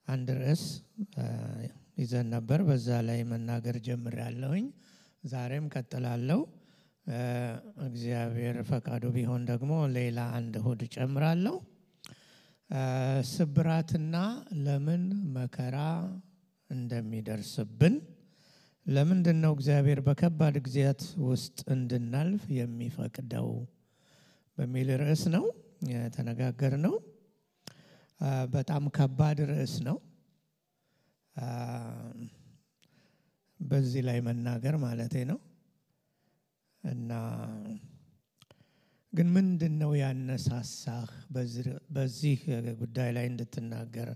አንድ ርዕስ ይዘን ነበር። በዛ ላይ መናገር ጀምሬያለሁኝ። ዛሬም ቀጥላለሁ። እግዚአብሔር ፈቃዱ ቢሆን ደግሞ ሌላ አንድ እሁድ ጨምራለሁ። ስብራትና ለምን መከራ እንደሚደርስብን፣ ለምንድነው እግዚአብሔር በከባድ ጊዜያት ውስጥ እንድናልፍ የሚፈቅደው በሚል ርዕስ ነው የተነጋገርነው። በጣም ከባድ ርዕስ ነው። በዚህ ላይ መናገር ማለቴ ነው። እና ግን ምንድነው ያነሳሳህ በዚህ ጉዳይ ላይ እንድትናገር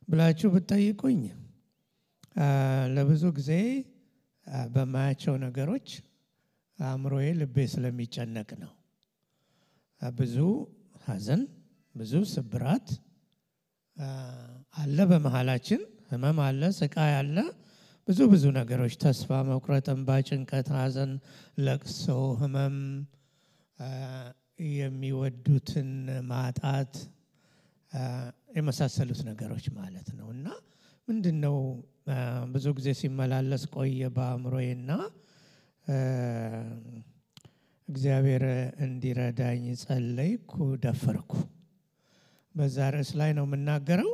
ብላችሁ ብትጠይቁኝ፣ ለብዙ ጊዜ በማያቸው ነገሮች አእምሮዬ ልቤ ስለሚጨነቅ ነው። ብዙ ሐዘን፣ ብዙ ስብራት አለ በመሃላችን። ህመም አለ፣ ስቃይ አለ፣ ብዙ ነገሮች፣ ተስፋ መቁረጥ፣ እንባ፣ ጭንቀት፣ ሐዘን፣ ለቅሶ፣ ህመም፣ የሚወዱትን ማጣት የመሳሰሉት ነገሮች ማለት ነው። እና ምንድነው ብዙ ጊዜ ሲመላለስ ቆየ በአእምሮዬና እግዚአብሔር እንዲረዳኝ ጸለይኩ፣ ደፈርኩ። በዛ ርዕስ ላይ ነው የምናገረው።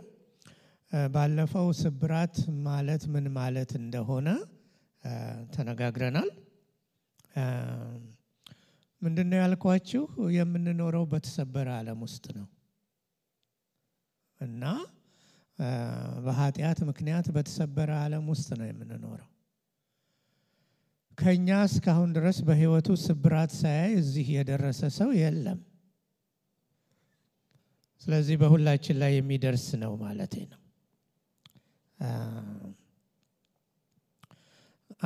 ባለፈው ስብራት ማለት ምን ማለት እንደሆነ ተነጋግረናል። ምንድነው ያልኳችሁ? የምንኖረው በተሰበረ ዓለም ውስጥ ነው እና በኃጢአት ምክንያት በተሰበረ ዓለም ውስጥ ነው የምንኖረው። ከኛ እስካሁን ድረስ በህይወቱ ስብራት ሳያይ እዚህ የደረሰ ሰው የለም። ስለዚህ በሁላችን ላይ የሚደርስ ነው ማለቴ ነው።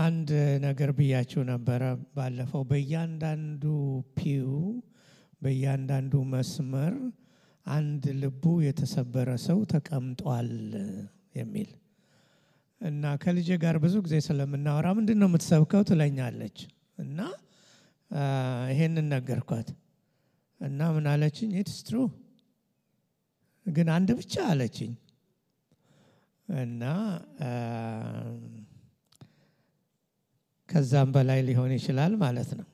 አንድ ነገር ብያችሁ ነበረ ባለፈው። በእያንዳንዱ ፒው፣ በእያንዳንዱ መስመር አንድ ልቡ የተሰበረ ሰው ተቀምጧል የሚል እና ከልጄ ጋር ብዙ ጊዜ ስለምናወራ ምንድነው የምትሰብከው ትለኛለች። እና ይሄንን ነገርኳት እና ምን አለችኝ? ኢትስ ትሩ ግን አንድ ብቻ አለችኝ። እና ከዛም በላይ ሊሆን ይችላል ማለት ነው።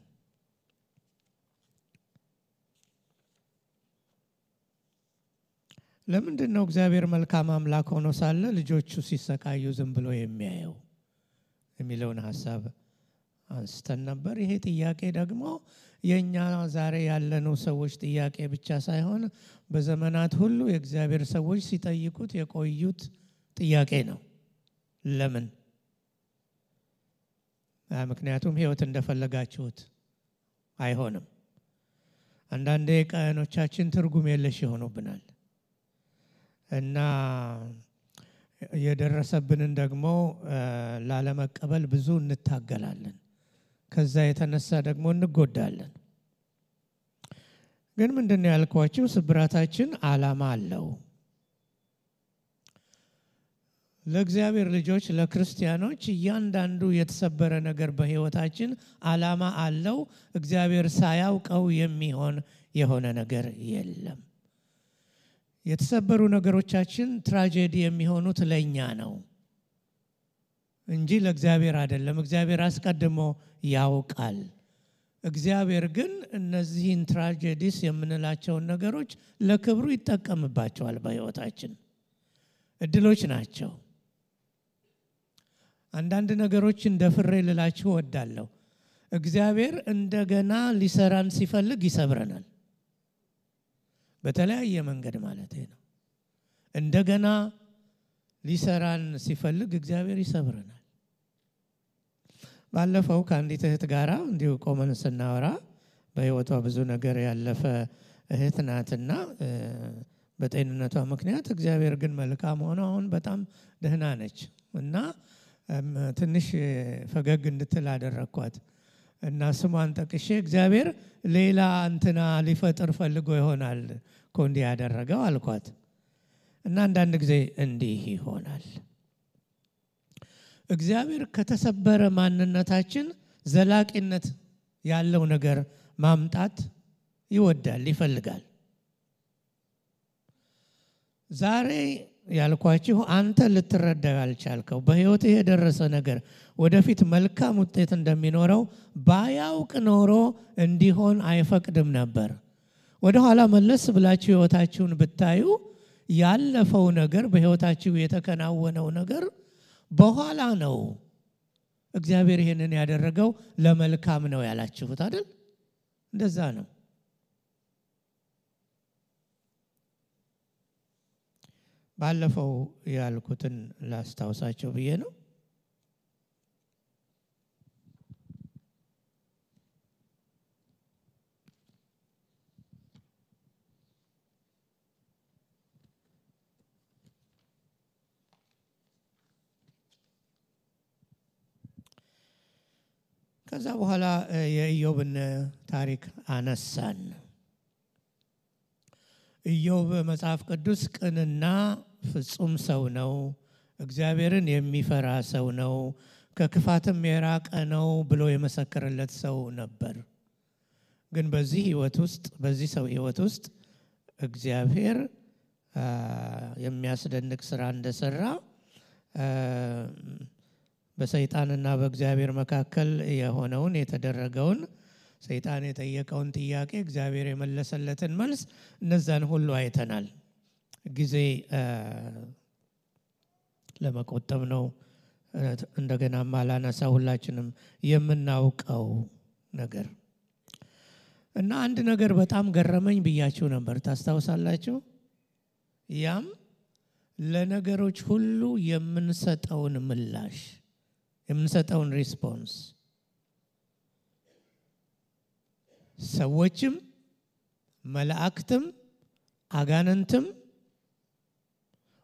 ለምንድነው እግዚአብሔር መልካም አምላክ ሆኖ ሳለ ልጆቹ ሲሰቃዩ ዝም ብሎ የሚያየው የሚለውን ሐሳብ አንስተን ነበር። ይሄ ጥያቄ ደግሞ የኛ ዛሬ ያለነው ሰዎች ጥያቄ ብቻ ሳይሆን በዘመናት ሁሉ የእግዚአብሔር ሰዎች ሲጠይቁት የቆዩት ጥያቄ ነው። ለምን? ምክንያቱም ህይወት እንደፈለጋችሁት አይሆንም። አንዳንዴ ቀኖቻችን ትርጉም የለሽ ይሆኑብናል እና የደረሰብንን ደግሞ ላለመቀበል ብዙ እንታገላለን። ከዛ የተነሳ ደግሞ እንጎዳለን። ግን ምንድነው ያልኳችሁ? ስብራታችን ዓላማ አለው። ለእግዚአብሔር ልጆች፣ ለክርስቲያኖች እያንዳንዱ የተሰበረ ነገር በህይወታችን ዓላማ አለው። እግዚአብሔር ሳያውቀው የሆነ ነገር የለም። የተሰበሩ ነገሮቻችን ትራጀዲ የሚሆኑት ለኛ ነው እንጂ ለእግዚአብሔር አይደለም። እግዚአብሔር አስቀድሞ ያውቃል። እግዚአብሔር ግን እነዚህን ትራጀዲስ የምንላቸውን ነገሮች ለክብሩ ይጠቀምባቸዋል። በህይወታችን እድሎች ናቸው። አንዳንድ ነገሮችን ደፍሬ ልላችሁ እወዳለሁ። እግዚአብሔር እንደገና ሊሰራን ሲፈልግ ይሰብረናል። በተለያየ መንገድ ማለት ነው። እንደገና ሊሰራን ሲፈልግ እግዚአብሔር ይሰብረናል። ባለፈው ከአንዲት እህት ጋራ እንዲሁ ቆመን ስናወራ በህይወቷ ብዙ ነገር ያለፈ እህት ናትና በጤንነቷ ምክንያት እግዚአብሔር ግን መልካም ሆኖ አሁን በጣም ደህና ነች እና ትንሽ ፈገግ እንድትል አደረኳት እና ስሟን ጠቅሼ እግዚአብሔር ሌላ እንትና ሊፈጥር ፈልጎ ይሆናል እኮ እንዲህ ያደረገው አልኳት። እና አንዳንድ ጊዜ እንዲህ ይሆናል። እግዚአብሔር ከተሰበረ ማንነታችን ዘላቂነት ያለው ነገር ማምጣት ይወዳል፣ ይፈልጋል። ዛሬ ያልኳችሁ አንተ ልትረዳው ያልቻልከው በህይወት የደረሰ ነገር ወደፊት መልካም ውጤት እንደሚኖረው ባያውቅ ኖሮ እንዲሆን አይፈቅድም ነበር። ወደ ኋላ መለስ ብላችሁ ህይወታችሁን ብታዩ ያለፈው ነገር በህይወታችሁ የተከናወነው ነገር በኋላ ነው እግዚአብሔር ይሄንን ያደረገው ለመልካም ነው ያላችሁት አይደል? እንደዛ ነው። ባለፈው ያልኩትን ላስታውሳችሁ ብዬ ነው። ከዛ በኋላ የኢዮብን ታሪክ አነሳን። ኢዮብ መጽሐፍ ቅዱስ ቅንና ፍጹም ሰው ነው፣ እግዚአብሔርን የሚፈራ ሰው ነው፣ ከክፋትም የራቀ ነው ብሎ የመሰከረለት ሰው ነበር። ግን በዚህ ሰው ህይወት ውስጥ እግዚአብሔር የሚያስደንቅ ስራ እንደሰራ በሰይጣንና በእግዚአብሔር መካከል የሆነውን የተደረገውን ሰይጣን የጠየቀውን ጥያቄ እግዚአብሔር የመለሰለትን መልስ እነዛን ሁሉ አይተናል። ጊዜ ለመቆጠብ ነው እንደገና ማላነሳ ሁላችንም የምናውቀው ነገር እና አንድ ነገር በጣም ገረመኝ ብያችሁ ነበር ታስታውሳላችሁ። ያም ለነገሮች ሁሉ የምንሰጠውን ምላሽ የምንሰጠውን ሪስፖንስ ሰዎችም መላእክትም አጋንንትም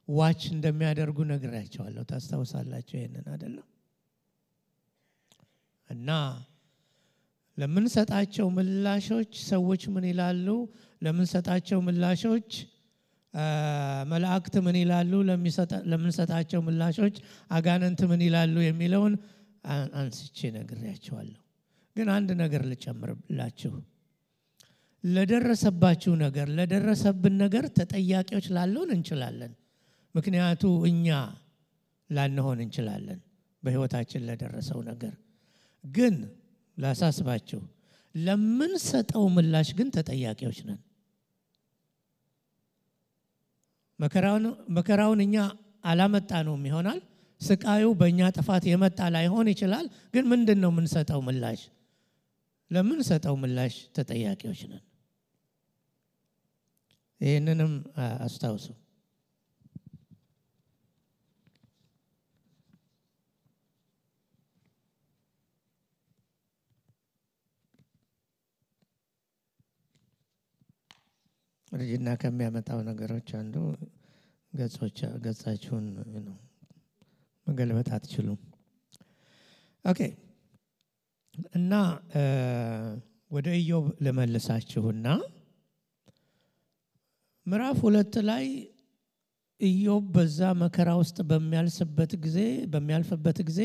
ዋች እንደሚያደርጉ ነግራቸዋለሁ። ታስታውሳላችሁ ይሄንን አይደለም? እና ለምንሰጣቸው ምላሾች ሰዎች ምን ይላሉ? ለምንሰጣቸው ምላሾች መላእክት ምን ይላሉ? ለምንሰጣቸው ምላሾች አጋንንት ምን ይላሉ የሚለውን አንስቼ ነግራቸዋለሁ። ግን አንድ ነገር ልጨምርላችሁ። ለደረሰባችሁ ነገር ለደረሰብን ነገር ተጠያቂዎች ላልሆን እንችላለን። ምክንያቱ እኛ ላንሆን እንችላለን በህይወታችን ለደረሰው ነገር። ግን ላሳስባችሁ ለምንሰጠው ምላሽ ግን ተጠያቂዎች ነን። መከራውን እኛ አላመጣነውም ይሆናል። ስቃዩ በእኛ ጥፋት የመጣ ላይሆን ይችላል። ግን ምንድነው የምንሰጠው ምላሽ? ለምንሰጠው ምላሽ ተጠያቂዎች ነን። ይህንንም አስታውሱ። ርጅና ከሚያመጣው ነገሮች አንዱ ገጻችሁን ነው መገልበጥ አትችሉም። ኦኬ። እና ወደ ኢዮብ ለመልሳችሁና ምዕራፍ 2 ላይ ኢዮብ በዛ መከራ ውስጥ በሚያልፍበት ጊዜ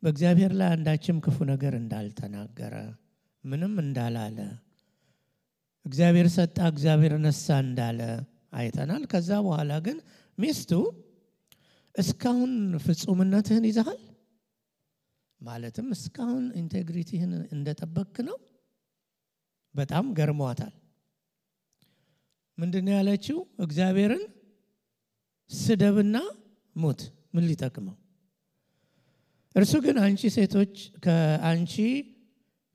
በእግዚአብሔር ላይ አንዳችም ክፉ ነገር እንዳልተናገረ ምንም እንዳላለ እግዚአብሔር ሰጣ እግዚአብሔር ነሳ እንዳለ አይተናል። ከዛ በኋላ ግን ሚስቱ እስካሁን ፍጹምነትህን ይዘሃል ማለትም እስካሁን ኢንቴግሪቲህን እንደጠበቅክ ነው። በጣም ገርሟታል። ምንድነው ያለችው? እግዚአብሔርን ስደብና ሙት ምን ሊጠቅመው? እርሱ ግን አንቺ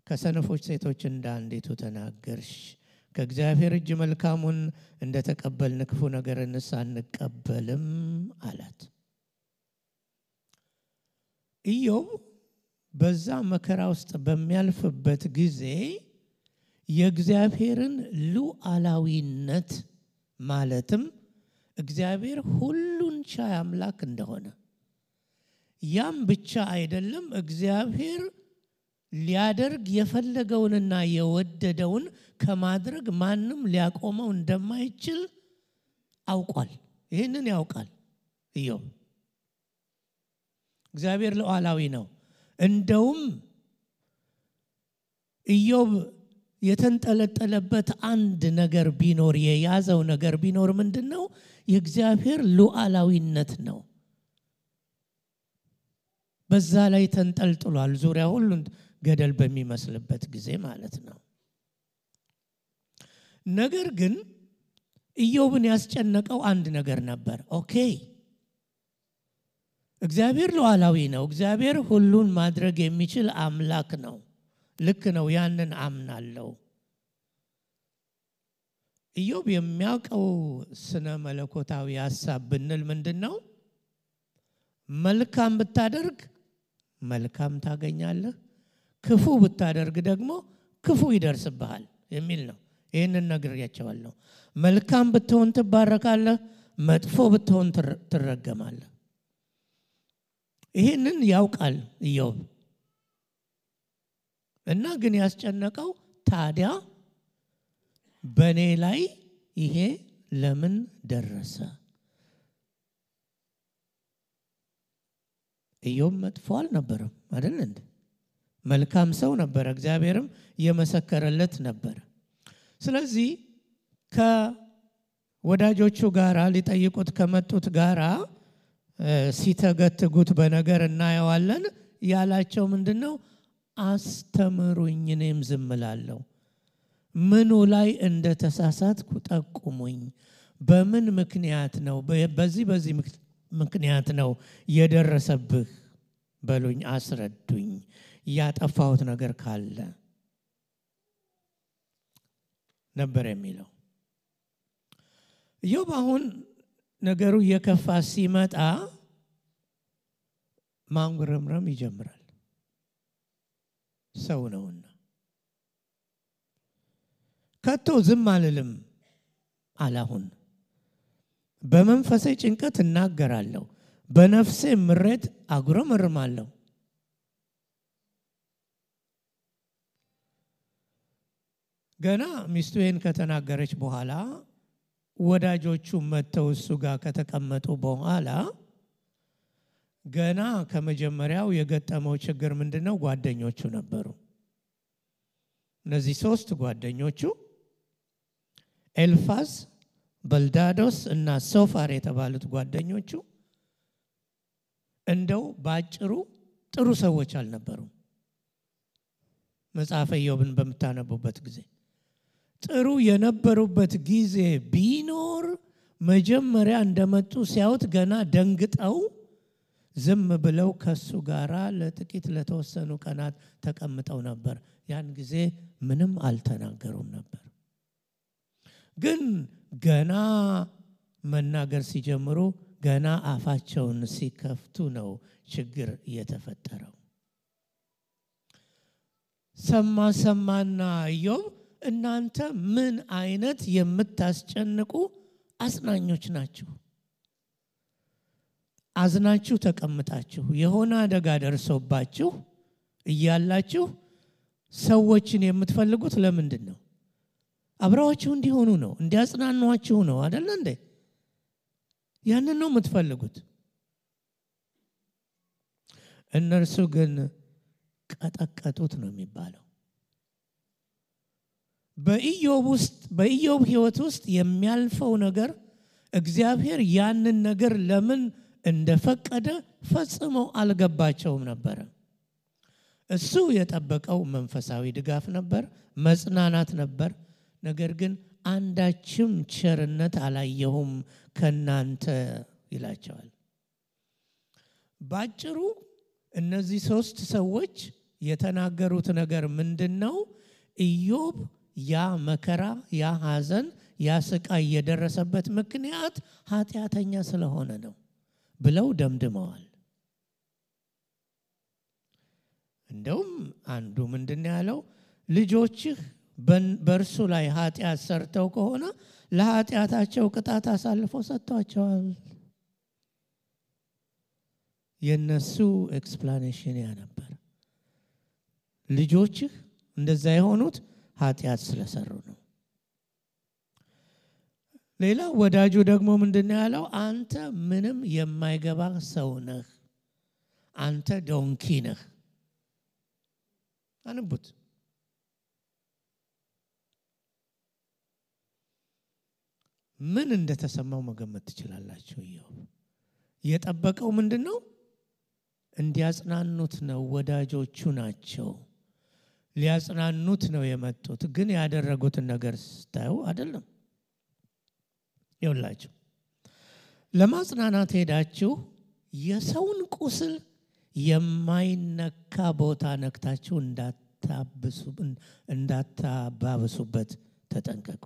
ከሰነፎች ሴቶች እንዳንዲቱ ተናገርሽ፣ ከእግዚአብሔር እጅ መልካሙን እንደተቀበልን ክፉ ነገርንስ አንቀበልም አላት። ኢዮብ በዛ መከራ ውስጥ በሚያልፍበት ጊዜ የእግዚአብሔርን ሉዓላዊነት ማለትም እግዚአብሔር ሁሉን ቻይ አምላክ እንደሆነ ያም ብቻ አይደለም እግዚአብሔር ሊያደርግ የፈለገውንና የወደደውን ከማድረግ ማንም ሊያቆመው እንደማይችል አውቋል። ይሄንን ያውቃል ኢዮብ። እግዚአብሔር ሉዓላዊ ነው። እንደውም ኢዮብ የተንጠለጠለበት አንድ ነገር ቢኖር የያዘው ነገር ቢኖር ምንድነው? የእግዚአብሔር ሉዓላዊነት ነው። በዛ ላይ ተንጠልጥሏል። ዙሪያ ሁሉ ገደል በሚመስልበት ጊዜ ማለት ነው። ነገር ግን ኢዮብን ያስጨነቀው አንድ ነገር ነበር። ኦኬ እግዚአብሔር ሉዓላዊ ነው። እግዚአብሔር ሁሉን ማድረግ የሚችል አምላክ ነው። ልክ ነው። ያንን አምናለሁ። ኢዮብ የሚያውቀው ስነ መለኮታዊ ሐሳብ ብንል ምንድነው? መልካም ብታደርግ መልካም ታገኛለህ፣ ክፉ ብታደርግ ደግሞ ክፉ ይደርስብሃል የሚል ነው። ይሄንን ነግሬያቸዋለሁ። መልካም ብትሆን ትባረካለህ፣ መጥፎ ብትሆን ትረገማለህ። ይሄንን ያውቃል ኢዮብ። እና ግን ያስጨነቀው ታዲያ በኔ ላይ ይሄ ለምን ደረሰ? ኢዮብ መጥፎ አልነበረም አይደል እንዴ? መልካም ሰው ነበር። እግዚአብሔርም የመሰከረለት ነበር። ስለዚህ ከወዳጆቹ ጋራ ሊጠይቁት ከመጡት ጋራ ሲተገትጉት በነገር እናየዋለን። ያላቸው ምንድነው? አስተምሩኝ እኔም ዝም እላለሁ። ምኑ ላይ እንደተሳሳትኩ ጠቁሙኝ። በምን ምክንያት ነው በዚህ ምክንያት ነው የደረሰብህ በሉኝ፣ አስረዱኝ። ያጠፋሁት ነገር ካለ ነበር የሚለው ኢዮብ። አሁን ነገሩ የከፋ ሲመጣ ማንጉረምረም ይጀምራል። ሰው ነውና ከቶ ዝም አልልም አላሁን። በመንፈሴ ጭንቀት እናገራለሁ፣ በነፍሴ ምሬት አጉረመርማለሁ። ገና ሚስቱን ከተናገረች በኋላ ወዳጆቹ መተው እሱ ጋር ከተቀመጡ በኋላ ገና ከመጀመሪያው የገጠመው ችግር ምንድነው? ጓደኞቹ ነበሩ። እነዚህ ሶስት ጓደኞቹ ኤልፋዝ፣ በልዳዶስ እና ሶፋር የተባሉት ጓደኞቹ እንደው ባጭሩ ጥሩ ሰዎች አልነበሩም። መጽሐፈ ኢዮብን በመታነቡበት ጊዜ ጥሩ የነበሩበት ጊዜ ቢኖር መጀመሪያ እንደመጡ ሲያዩት ገና ደንግጠው ዝም ብለው ከሱ ጋራ ለጥቂት ለተወሰኑ ቀናት ተቀምጠው ነበር። ያን ጊዜ ምንም አልተናገሩም ነበር። ግን ገና መናገር ሲጀምሩ ገና አፋቸውን ሲከፍቱ ነው ችግር የተፈጠረው። ሰማና ኢዮብ እናንተ ምን አይነት የምታስጨንቁ አጽናኞች ናችሁ? አዝናችሁ ተቀምጣችሁ የሆነ አደጋ ደርሶባችሁ እያላችሁ ሰዎችን የምትፈልጉት ለምንድን ነው? አብረዋችሁ እንዲሆኑ ነው፣ እንዲያጽናኗችሁ ነው አይደል እንዴ? ያንን ነው የምትፈልጉት። እነርሱ ግን ቀጠቀጡት ነው የሚባለው። በኢዮብ ሕይወት ውስጥ የሚያልፈው ነገር እግዚአብሔር ያንን ነገር ለምን እንደፈቀደ ፈጽሞ አልገባቸውም ነበር። እሱ የጠበቀው መንፈሳዊ ድጋፍ ነበር፣ መጽናናት ነበር። ነገር ግን አንዳችም ቸርነት አላየሁም ከናንተ ይላቸዋል። ባጭሩ እነዚህ ሶስት ሰዎች የተናገሩት ነገር ምንድነው? ኢዮብ ያ መከራ፣ ያ ሐዘን፣ ያ ስቃይ የደረሰበት ምክንያት ኃጢአተኛ ስለሆነ ነው ብለው ደምድመዋል። እንደውም አንዱ ምንድነው ያለው? ልጆችህ በእርሱ ላይ ኃጢአት ሰርተው ከሆነ ለኃጢአታቸው ቅጣት አሳልፎ ሰጥቷቸዋል። የነሱ ኤክስፕላኔሽን ያ ነበር። ልጆችህ እንደዛ የሆኑት ኃጢአት ስለሰሩ ነው። ሌላ ወዳጁ ደግሞ ምንድነው ያለው? አንተ ምንም የማይገባ ሰው ነህ፣ አንተ ዶንኪ ነህ። አንቡት። ምን እንደተሰማው መገመት ትችላላችሁ። ኢዮብ የጠበቀው ምንድነው? እንዲያጽናኑት ነው። ወዳጆቹ ናቸው፣ ሊያጽናኑት ነው የመጡት። ግን ያደረጉትን ነገር ስታዩ አይደለም። ይኸውላችሁ ለማጽናናት ሄዳችሁ የሰውን ቁስል የማይነካ ቦታ ነክታችሁ እንዳታባብሱበት ተጠንቀቁ።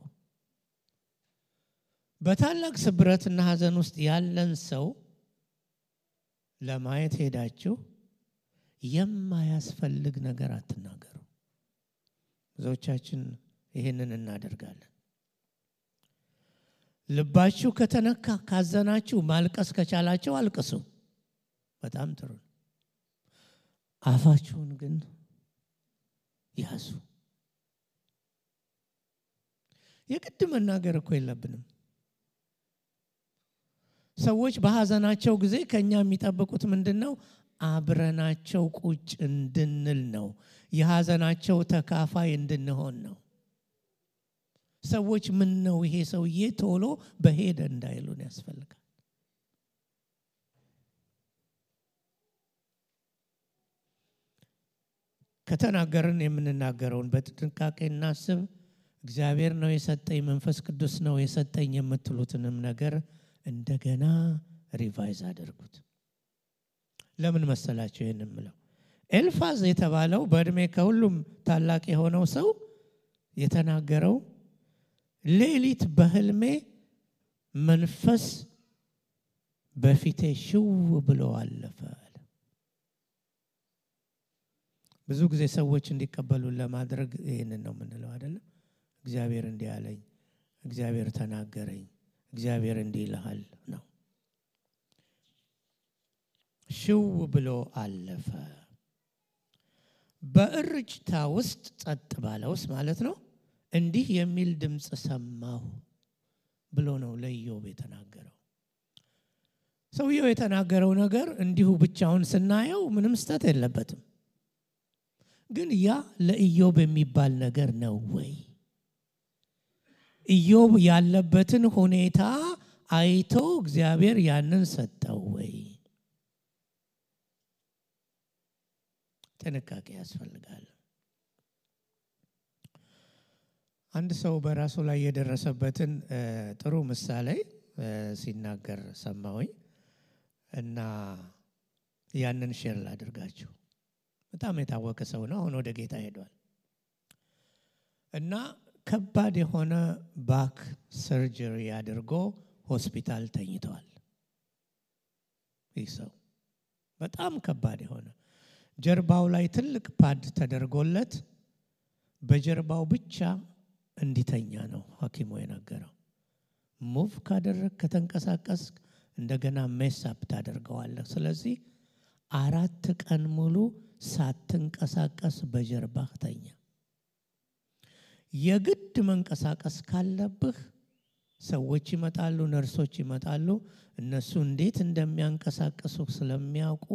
በታላቅ ስብረትና ሐዘን ውስጥ ያለን ሰው ለማየት ሄዳችሁ የማያስፈልግ ነገር አትናገሩ። ብዙዎቻችን ይሄንን እናደርጋለን። ልባችሁ ከተነካ ካዘናችሁ ማልቀስ ከቻላችሁ አልቅሱ፣ በጣም ጥሩ። አፋችሁን ግን ያዙ። የግድ መናገር እኮ የለብንም። ሰዎች በሐዘናቸው ጊዜ ከኛ የሚጠብቁት ምንድነው? አብረናቸው ቁጭ እንድንል ነው። የሐዘናቸው ተካፋይ እንድንሆን ነው። ሰዎች ምን ነው ይሄ ሰውዬ ቶሎ በሄደ እንዳይሉን ያስፈልጋል። ከተናገርን የምንናገረውን በጥንቃቄ እናስብ። እግዚአብሔር ነው የሰጠኝ፣ መንፈስ ቅዱስ ነው የሰጠኝ የምትሉትንም ነገር እንደገና ሪቫይዝ አድርጉት። ለምን መሰላችሁ ይሄንን ምለው? ኤልፋዝ የተባለው በእድሜ ከሁሉም ታላቅ የሆነው ሰው የተናገረው ሌሊት በህልሜ መንፈስ በፊቴ ሽው ብሎ አለፈ። ብዙ ጊዜ ሰዎች እንዲቀበሉን ለማድረግ ይሄንን ነው የምንለው አይደለም? እግዚአብሔር እንዲህ አለኝ፣ እግዚአብሔር ተናገረኝ፣ እግዚአብሔር እንዲህ ይልሃል ነው። ሽው ብሎ አለፈ። በእርጭታ ውስጥ ጸጥ ባለ ውስጥ ማለት ነው እንዲህ የሚል ድምጽ ሰማሁ ብሎ ነው ለኢዮብ የተናገረው። ሰውየው የተናገረው ነገር እንዲሁ ብቻውን ስናየው ምንም ስተት የለበትም። ግን ያ ለኢዮብ የሚባል ነገር ነው ወይ? ኢዮብ ያለበትን ሁኔታ አይቶ እግዚአብሔር ያንን ሰጠው ወይ? ጥንቃቄ ያስፈልጋል። አንድ ሰው በራሱ ላይ የደረሰበትን ጥሩ ምሳሌ ሲናገር ሰማሁኝ እና ያንን ሼር ላድርጋችሁ። በጣም የታወቀ ሰው ነው። አሁን ወደ ጌታ ሄዷል እና ከባድ የሆነ ባክ ሰርጀሪ አድርጎ ሆስፒታል ተኝቷል። ይህ ሰው በጣም ከባድ የሆነ ጀርባው ላይ ትልቅ ፓድ ተደርጎለት በጀርባው ብቻ እንዲተኛ ነው ሐኪሙ የነገረው። ሙቭ ካደረክ ከተንቀሳቀስ እንደገና ሜስአፕ ታደርገዋለህ። ስለዚህ 4 ቀን ሙሉ ሳትንቀሳቀስ በጀርባህ ተኛ። የግድ መንቀሳቀስ ካለብህ ሰዎች ይመጣሉ፣ ነርሶች ይመጣሉ። እነሱ እንዴት እንደሚያንቀሳቅሱ ስለሚያውቁ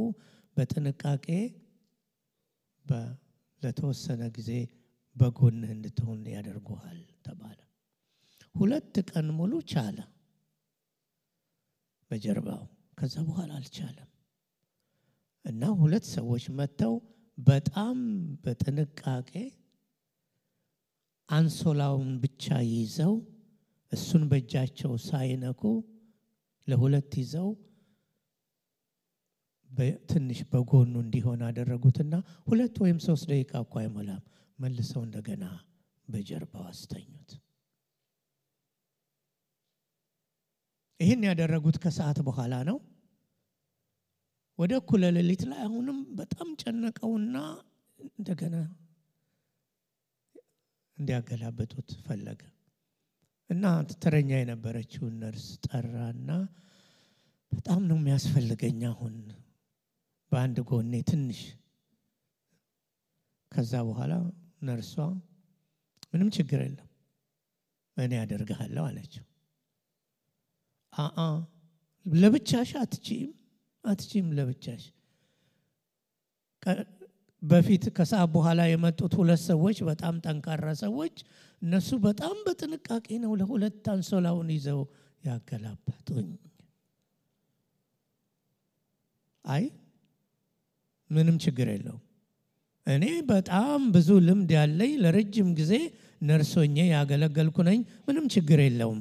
በጥንቃቄ ለተወሰነ ጊዜ በጎንህ እንድትሆን ያደርጉሃል ተባለ። 2 ቀን ሙሉ ቻለ በጀርባው። ከዛ በኋላ አልቻለም እና 2 ሰዎች መጥተው በጣም በጥንቃቄ አንሶላውን ብቻ ይዘው እሱን በእጃቸው ሳይነኩ ለ2 ይዘው በትንሽ በጎኑ እንዲሆን አደረጉትና 2 ወይም 3 ደቂቃ እንኳን አይሞላም መልሰው እንደገና በጀርባው አስተኙት። ይሄን ያደረጉት ከሰዓት በኋላ ነው። ወደ እኩለ ሌሊት ላይ አሁንም በጣም ጨነቀውና እንደገና እንዲያገላብጡት ፈለገ እና ተረኛ የነበረችውን ነርስ ጠራና በጣም ነው የሚያስፈልገኝ አሁን በአንድ ጎኔ ትንሽ። ከዛ በኋላ ነርሷ ምንም ችግር የለም እኔ አደርጋለሁ አለችው። ለብቻሽ አትችይም ለብቻሽ በፊት ከሰዓት በኋላ የመጡት ሁለት ሰዎች በጣም ጠንካራ ሰዎች እነሱ በጣም በጥንቃቄ ነው ለሁለት አንሶላውን ይዘው ያገላበጡኝ። አይ ምንም ችግር የለውም፣ እኔ በጣም ብዙ ልምድ ያለኝ ለረጅም ጊዜ ነርሶኜ ያገለገልኩ ነኝ፣ ምንም ችግር የለውም።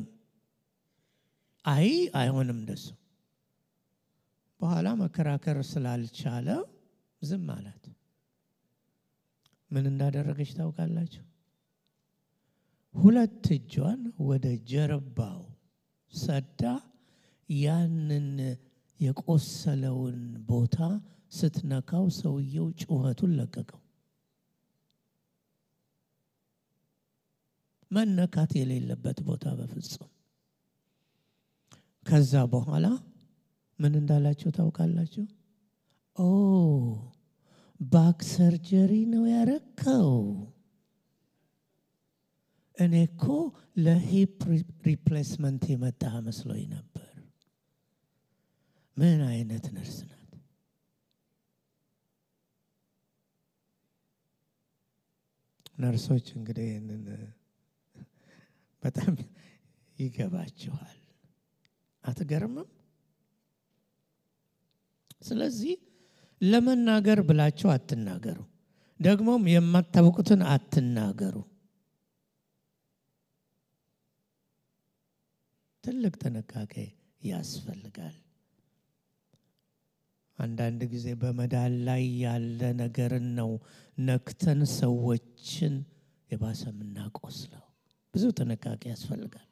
አይ አይሆንም እንደሱ። በኋላ መከራከር ስላልቻለ ዝም አላት። ምን እንዳደረገች ታውቃላችሁ? ሁለት እጇን ወደ ጀርባው ሰዳ ያንን የቆሰለውን ቦታ ስትነካው ሰውየው ጩኸቱን ለቀቀው። መነካት የሌለበት ቦታ በፍጹም። ከዛ በኋላ ምን እንዳላችሁ ታውቃላችሁ? ኦ ባክ ሰርጀሪ ነው ያረከው? እኔ እኮ ለሂፕ ሪፕሌስመንት የመጣ መስሎኝ ነበር። ምን አይነት ነርስ ናት! ነርሶች እንግዲህ ይህንን በጣም ይገባችኋል። አትገርምም? ስለዚህ ለመናገር ብላችሁ አትናገሩ፣ ደግሞም የማታውቁትን አትናገሩ። ትልቅ ጥንቃቄ ያስፈልጋል። አንዳንድ ጊዜ በመዳን ላይ ያለ ነገርን ነው ነክተን ሰዎችን የባሰ የምናቆስለው። ብዙ ጥንቃቄ ያስፈልጋል።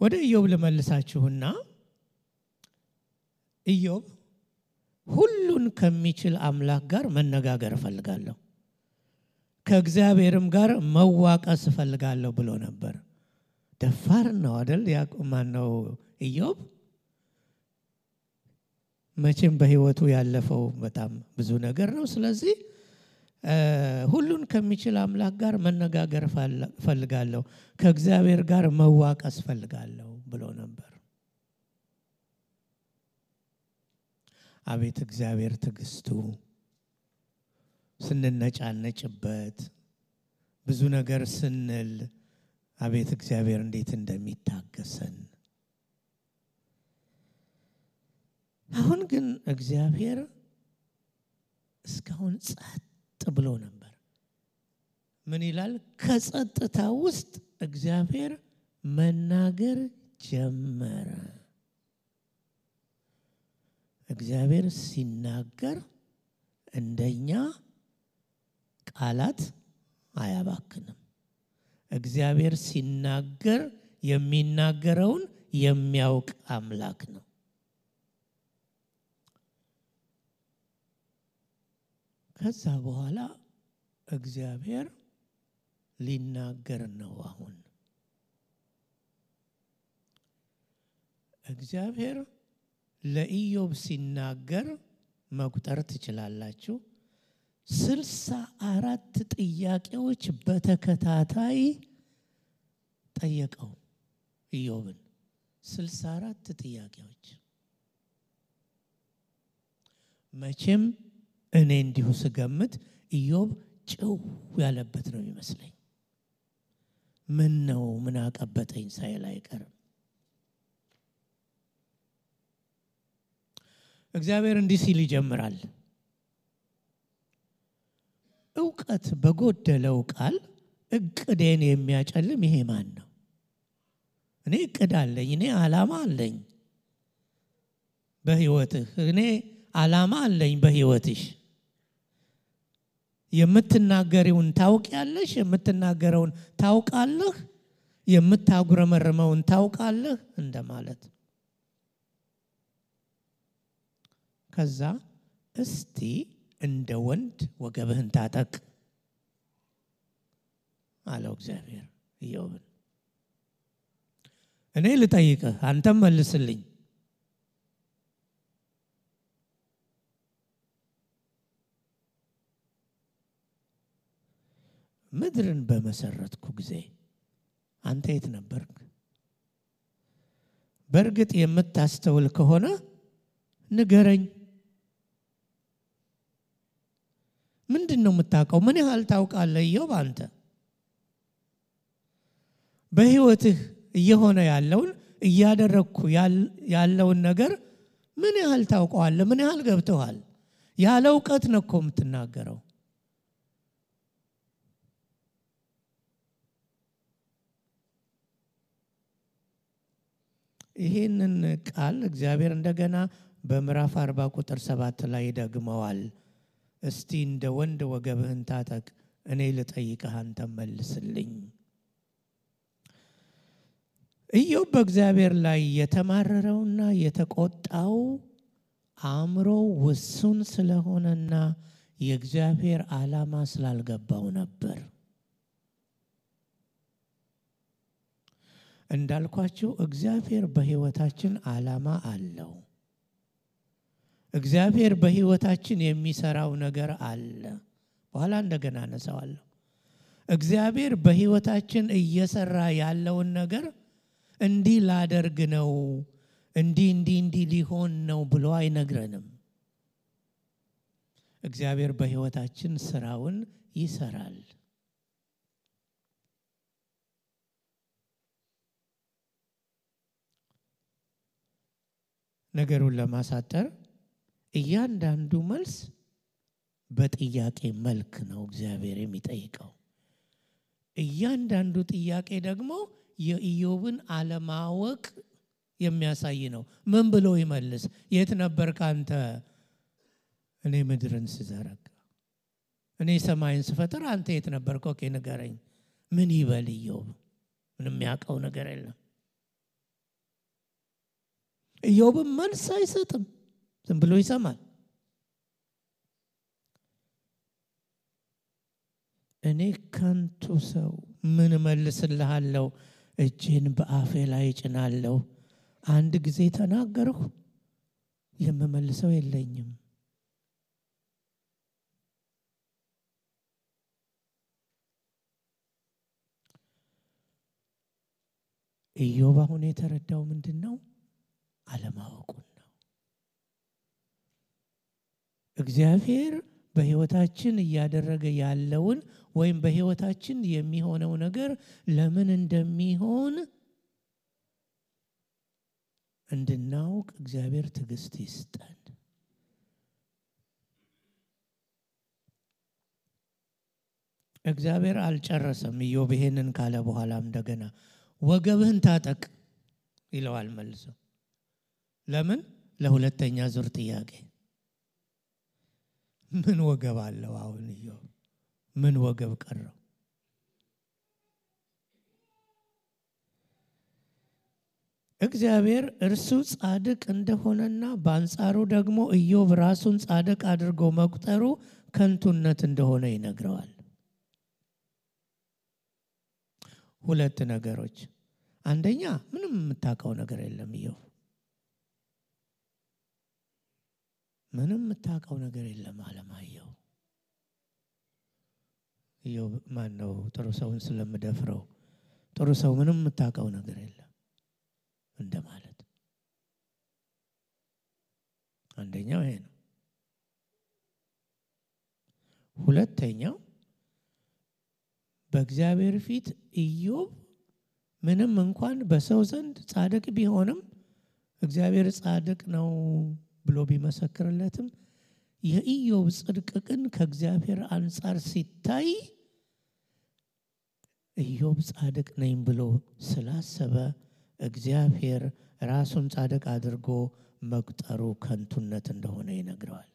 ወደ ኢዮብ ልመልሳችሁና ኢዮብ ሁሉን ከሚችል አምላክ ጋር መነጋገር እፈልጋለሁ፣ ከእግዚአብሔርም ጋር መዋቀስ እፈልጋለሁ ብሎ ነበር። ደፋር ነው አይደል? ያዕቆብ ነው ኢዮብ። መቼም በህይወቱ ያለፈው በጣም ብዙ ነገር ነው። ስለዚህ ሁሉን ከሚችል አምላክ ጋር መነጋገር እፈልጋለሁ፣ ከእግዚአብሔር ጋር መዋቀስ እፈልጋለሁ ብሎ ነበር። አቤት እግዚአብሔር ትዕግስቱ! ስንነጫነጭበት ብዙ ነገር ስንል አቤት እግዚአብሔር እንዴት እንደሚታገሰን። አሁን ግን እግዚአብሔር እስካሁን ጸጥ ብሎ ነበር። ምን ይላል? ከጸጥታ ውስጥ እግዚአብሔር መናገር ጀመረ። እግዚአብሔር ሲናገር እንደኛ ቃላት አያባክንም። እግዚአብሔር ሲናገር የሚናገረውን የሚያውቅ አምላክ ነው። ከዛ በኋላ እግዚአብሔር ሊናገር ነው። አሁን እግዚአብሔር ለኢዮብ ሲናገር መቁጠር ትችላላችሁ። 64 ጥያቄዎች በተከታታይ ጠየቀው ኢዮብን። 64 ጥያቄዎች። መቼም እኔ እንዲሁ ስገምት ኢዮብ ጭው ያለበት ነው የሚመስለኝ። ምን ነው ምን አቀበጠኝ ሳይል አይቀርም። እግዚአብሔር እንዲህ ሲል ይጀምራል። ዕውቀት በጎደለው ቃል እቅዴን የሚያጨልም ይሄ ማን ነው? እኔ እቅድ አለኝ፣ እኔ ዓላማ አለኝ በህይወትህ፣ እኔ ዓላማ አለኝ በህይወትሽ። የምትናገሪውን ታውቂያለሽ፣ የምትናገረውን ታውቃለህ፣ የምታጉረመርመውን ታውቃለህ እንደማለት። ከዛ እስቲ እንደ ወንድ ወገብህን ታጠቅ አለው እግዚአብሔር ኢዮብን። እኔ ልጠይቅህ አንተም መልስልኝ። ምድርን በመሰረትኩ ጊዜ አንተ የት ነበርክ? በእርግጥ የምታስተውል ከሆነ ንገረኝ። ምንድነው የምታውቀው? ምን ያህል ታውቃለህ ኢዮብ? አንተ በህይወትህ እየሆነ ያለውን እያደረግኩ ያለውን ነገር ምን ያህል ታውቀዋለህ? ምን ያህል ገብቶሃል? ያለ እውቀት ነው እኮ የምትናገረው። ይህንን ቃል እግዚአብሔር እንደገና በምዕራፍ 40 ቁጥር 7 ላይ ደግመዋል። እስቲ እንደ ወንድ ወገብህን ታጠቅ፣ እኔ ልጠይቅህ አንተ መልስልኝ። ኢዮብ በእግዚአብሔር ላይ የተማረረውና የተቆጣው አእምሮ ውሱን ስለሆነና የእግዚአብሔር ዓላማ ስላልገባው ነበር። እንዳልኳችሁ እግዚአብሔር በህይወታችን ዓላማ አለው። እግዚአብሔር በህይወታችን የሚሰራው ነገር አለ። በኋላ እንደገና አነሳዋለሁ። እግዚአብሔር በህይወታችን እየሰራ ያለውን ነገር እንዲህ ላደርግ ነው፣ እንዲህ ሊሆን ነው ብሎ አይነግረንም። እግዚአብሔር በህይወታችን ስራውን ይሰራል። ነገሩን ለማሳጠር እያንዳንዱ መልስ በጥያቄ መልክ ነው እግዚአብሔር የሚጠይቀው። እያንዳንዱ ጥያቄ ደግሞ የኢዮብን አለማወቅ የሚያሳይ ነው። ምን ብሎ ይመልስ? የት ነበርክ አንተ? እኔ ምድርን ስዘረጋ፣ እኔ ሰማይን ስፈጥር አንተ የት ነበርክ? ኦኬ ንገረኝ። ምን ይበል ኢዮብ? ምንም ያውቀው ነገር የለም። ኢዮብም መልስ አይሰጥም፣ ዝም ብሎ ይሰማል። እኔ ከንቱ ሰው ምን መልስልሃለሁ? እጄን በአፌ ላይ ጭናለሁ። አንድ ጊዜ ተናገርሁ፣ የምመልሰው የለኝም። ኢዮብ አሁን የተረዳው ምንድነው? አለማወቁን ነው። እግዚአብሔር በህይወታችን እያደረገ ያለውን ወይም በህይወታችን የሚሆነው ነገር ለምን እንደሚሆን እንድናውቅ እግዚአብሔር ትዕግስት ይስጠን። እግዚአብሔር አልጨረሰም። ኢዮብ ይሄንን ካለ በኋላም እንደገና ወገብህን ታጠቅ ይለዋል መልሶ። ለምን? ለሁለተኛ ዙር ጥያቄ። ምን ወገብ አለው አሁን ኢዮብ? ምን ወገብ ቀረው? እግዚአብሔር እርሱ ጻድቅ እንደሆነና በአንጻሩ ደግሞ ኢዮብ ራሱን ጻድቅ አድርጎ መቁጠሩ ከንቱነት እንደሆነ ይነግረዋል። ሁለት ነገሮች። አንደኛ ምንም የምታውቀው ነገር የለም ኢዮብ፣ ምንም የምታውቀው ነገር የለም አለማየሁ። ኢዮብ ማን ነው? ጥሩ ሰውን ስለምደፍረው ጥሩ ሰው ምንም የምታውቀው ነገር የለም እንደማለት። አንደኛው ይሄ ነው። ሁለተኛው በእግዚአብሔር ፊት ኢዮብ ምንም እንኳን በሰው ዘንድ ጻድቅ ቢሆንም እግዚአብሔር ጻድቅ ነው ብሎ ቢመሰክርለትም የኢዮብ ጽድቅ ግን ከእግዚአብሔር አንጻር ሲታይ ኢዮብ ጻድቅ ነኝ ብሎ ስላሰበ እግዚአብሔር ራሱን ጻድቅ አድርጎ መቁጠሩ ከንቱነት እንደሆነ ይነግረዋል።